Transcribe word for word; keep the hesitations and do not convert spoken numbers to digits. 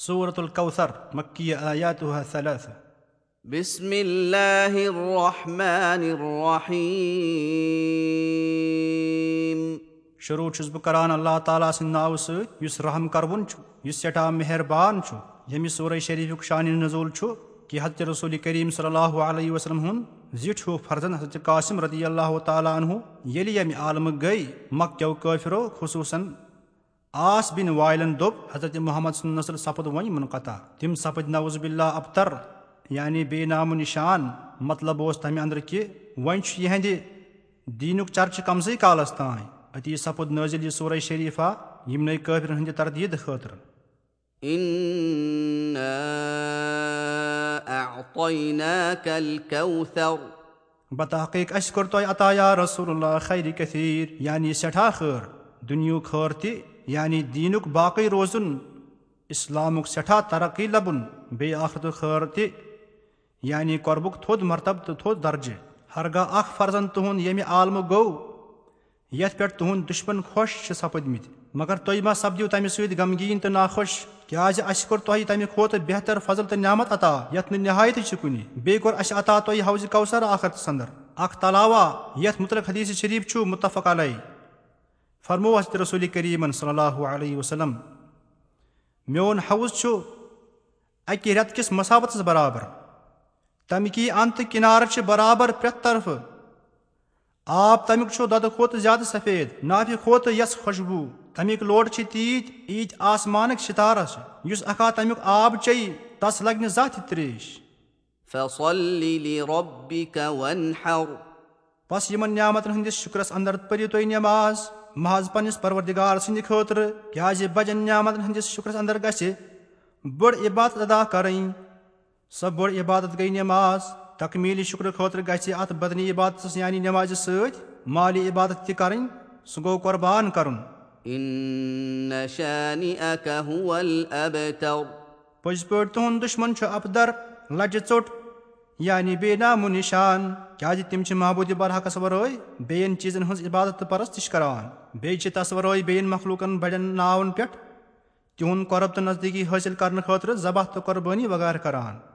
سورة الكوثر، مكية، آياتها ثلاثة. بسم الله الرحمن الرحيم. شروع چھُس بہٕ کران اللہ تعالیٰ سٕنٛدِ ناوٕ سۭتۍ، یُس رحم کروُن چھُ، یُس سٮ۪ٹھاہ مہربان چھُ۔ ییٚمہِ سورہ شریفُک شانِ نزول چھُ کہِ حضرت رسول کریم صلی اللہ علیہ وسلم ہُنٛد زِٹھ ہیوٗ فرزند حضرت قاسم رضی اللہ تعالیٰ عنہ ییٚلہِ ییٚمہِ عالمہٕ گٔے، مکہ کیو کٲفرو، خصوصاً عاص بن وائلن دوٚپ، حضرت محمد سُنٛد نسل سپُد وۄنۍ منقطع۔ تِم سپٕدۍ نعوذ باللہ ابتر، یعنی بے نام و نشان۔ مطلب اوس تمہِ اندرٕ کہِ وۄنۍ چھُ یِہنٛدِ دیٖنُک چرچہٕ کمسٕے کالس تام۔ أتی سپُد نٲزِل یہِ سورہ شریفہ یِمنٕے کٲفرن ہٕنٛدِ تردیٖد خٲطرٕ۔ إنا أعطيناك الكوثر. بتحقیق اسہِ کوٚر تۄہہِ عطا یا رسول اللہ خیر کثیر، یعنی سٮ۪ٹھاہ خٲر، دُنیہُک خٲر تہِ، یعنی دیٖنُک باقٕے روزُن، اسلامُک سٮ۪ٹھاہ ترقی لبُن، بیٚیہِ آخرتُک خٲر تہِ، یعنی قربُک تھوٚد مرتبہٕ تہٕ تھوٚد درجہٕ۔ ہرگاہ اکھ فرزند تُہُنٛد ییٚمہِ عالمہٕ گوٚو، یتھ پٮ۪ٹھ تُہُنٛد دُشمن خۄش چھِ سپٕدمٕتۍ، مگر تُہۍ ما سپدِو تمہِ سۭتۍ غمگیٖن تہٕ ناخۄش؟ کیازِ اسہِ کوٚر تۄہہِ تمہِ کھۄتہٕ بہتر فضل تہٕ نعمت عطا، یتھ نہٕ نہایت چھِ کُنہِ۔ بیٚیہِ کوٚر اسہِ عطا تۄہہِ حوض کوثر آخرتس اندر، اکھ تلاوا، یتھ متعلق حدیث شریف چھُ متفق علیہ۔ فرموو حضرت رسول کریمن صلی اللہ علیہ وسلم، میون حوض چھُ اکہِ رٮ۪تہٕ کِس مساوتس برابر۔ تمہِ کی انتہٕ کنارٕ چھِ برابر پرٛٮ۪تھ طرفہٕ۔ آب تمیُک چھُ دۄدٕ کھۄتہٕ زیادٕ سفید، نافہِ کھۄتہٕ یس خوشبو۔ تمیُک لوٹ چھِ تیٖتۍ، ییٖتۍ آسمانٕکۍ ستارٕ چھِ۔ یُس اکھا تمیُک آب چیٚیہِ، تس لگہِ نہٕ زانٛہہ تہِ تریش۔ فصل لربك وانحر. پس یِمن نعمتن ہٕنٛدِس شُکرس اندر پٔرِو تُہۍ نماز محض پننِس پروردگار سٕنٛدِ خٲطرٕ، کیازِ بجن نعمتن ہٕنٛدِس شُکرس اندر گژھِ بٔڑ عبادت ادا کرٕنۍ۔ سۄ بٔڑ عبادت گٔے نماز۔ تکمیل شُکرٕ خٲطرٕ گژھِ اتھ بدنی عبادتس یعنی نمازِ سۭتۍ مالی عبادت تہِ کرٕنۍ، سُہ گوٚو قربان کرُن۔ إن شانئك هو الأبتر. پٔزۍ پٲٹھۍ تُہُنٛد دُشمن چھُ ابتر، لجہِ ژوٚٹ، یعنی بے نام و نشان، کیازِ تِم چھِ معبوٗدِ برحقس ورٲے بیٚین چیٖزن ہٕنٛز عبادت تہٕ پرستش کران، بیٚیہِ چھِ تس ورٲے بیٚین مخلوٗقن بڑٮ۪ن ناون پٮ۪ٹھ تِہُنٛد قرب تہٕ نزدیٖکی حٲصِل کرنہٕ خٲطرٕ ذبح تہٕ قربٲنی وغٲرٕ کران۔